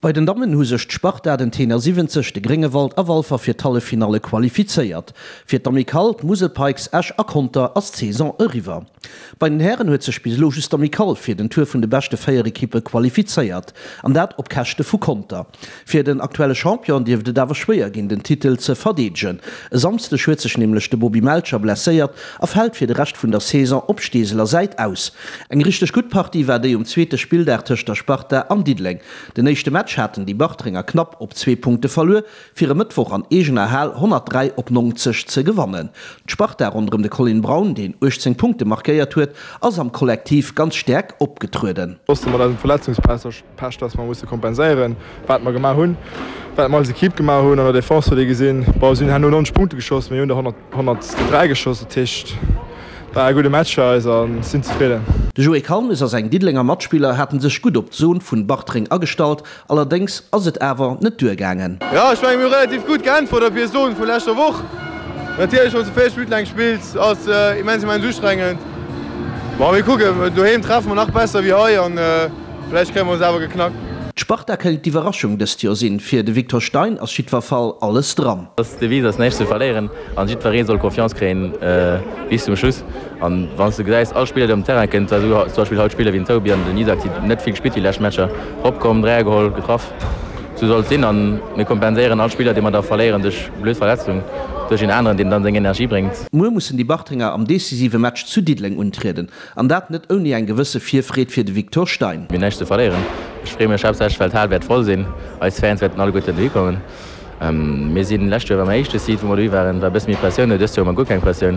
Bei den Dammen hu sech d'Sparta, den Tenor 70, de Gréngewald a Walfer fir d'Halleffinalle qualifizéiert. Fir d'Amicale, d'Musel Pikes, Esch a Conter ass d'Saison eriwwer. Bei den Hären huet sech bis elo just d'Amicale fir den Tour vun de beschte 4 Ekippe qualifizéiert, an dat op Käschte vu Conter. Fir den aktuelle Champion dierft et awer schwéier ginn, den Titel ze verdeedegen. E Samsdeg huet sech nämlech de Bobby Melcher blesséiert a fält fir de Rescht vun der Saison op Steeseler Säit aus. Eng richteg gutt Partie war déi um zweete Spilldag tëscht der Sparta an Diddeleng. Den éischte Match haten déi Bartrenger knapp op zwee Punkte verluer, fir e Mëttwoch an eegener Hal 103 op 90 ze gewannen. D'Sparta ronderëm de Colin Braun, deen 18 Punkte markéiert huet, ass am Kollektiv ganz staark opgetrueden. Wosste mat eisem Verletzungspech, dass mer musse kompenséieren, wat mer gemaach hunn, wat mer als Equipe gemaach hunn. An der Defense huet ee gesinn, bon, si hunn herno 90 Punkte geschoss, mir hunn der 103 geschoss, dat heescht, War e gudde Match fir eis a sinn zefridden. De Joé Kalmes a seng Diddelenger Matspiller haten sech gutt op d'Zon vun Bartreng agestallt, allerdéngs ass et awer net duergaangen. Jo, ech mengen mir hu relativ gutt geäntwert op hir Zon vu leschter Woch. Natierlech wann s de 40 Minutten laang spills ass immens immens ustrengend. Bon mir kucken, doheem treffe mer nach besser wéi hei an vläicht kréie mer se awer geknackt. D'Sparta kéint d'Iwwerraschung dëst Joer sinn. Fir de Victor Stein ass jiddwer Fall alles dran. D'Devise ass näischt ze verléieren an jiddweree soll Confiance kréien bis zum Schluss. An wann s de gesäis, all Spiller deen op den Terrain kënnt, esou zum Beispill haut Spiller wéi den Toby an den Isaac, déi net vill gespillt déi lescht Matcher, eropkomm, Dräier geholl, getraff. Esou soll et sinn an mir kompenséieren all Spiller dee mer da verléieren duerch blöd Verletzung duerch een aneren, deen dann seng Energie bréngt. Muer mussen déi Bartrenger am decisive Match zu Diddeleng untrieden. An dat net ouni eng gewësse Virfreed fir de Victor Stein. Mir hunn näischt ze verléieren. Ech freeë mech haaptsächlech, well d'Hal wäert voll sinn. Eis Fans wäerten alleguerten dohi kommen. Mir sinn, lescht Joer war mäi éischte Seat, wou mer dohi waren, war e bësse méi Pressioun do. Dëst Joer hu mer guer keng Pressioun.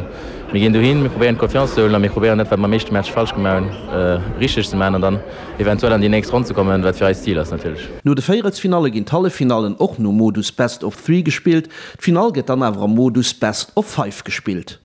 Mir ginn dohin, mir probéieren d'Confiance ze huelen a mir probéieren dat, wat mer am éischte Match falsch gemaach hunn, richteg ze maachen an dann eventuell an déi nächst Ronn ze kommen, wat fir eis d'Zil ass natierlech. No de Véierelsfinalle ginn d'Halleffinallen och nom Modus Best of Three gespillt. D'Finall gëtt dann awer am Modus Best of Five gespillt.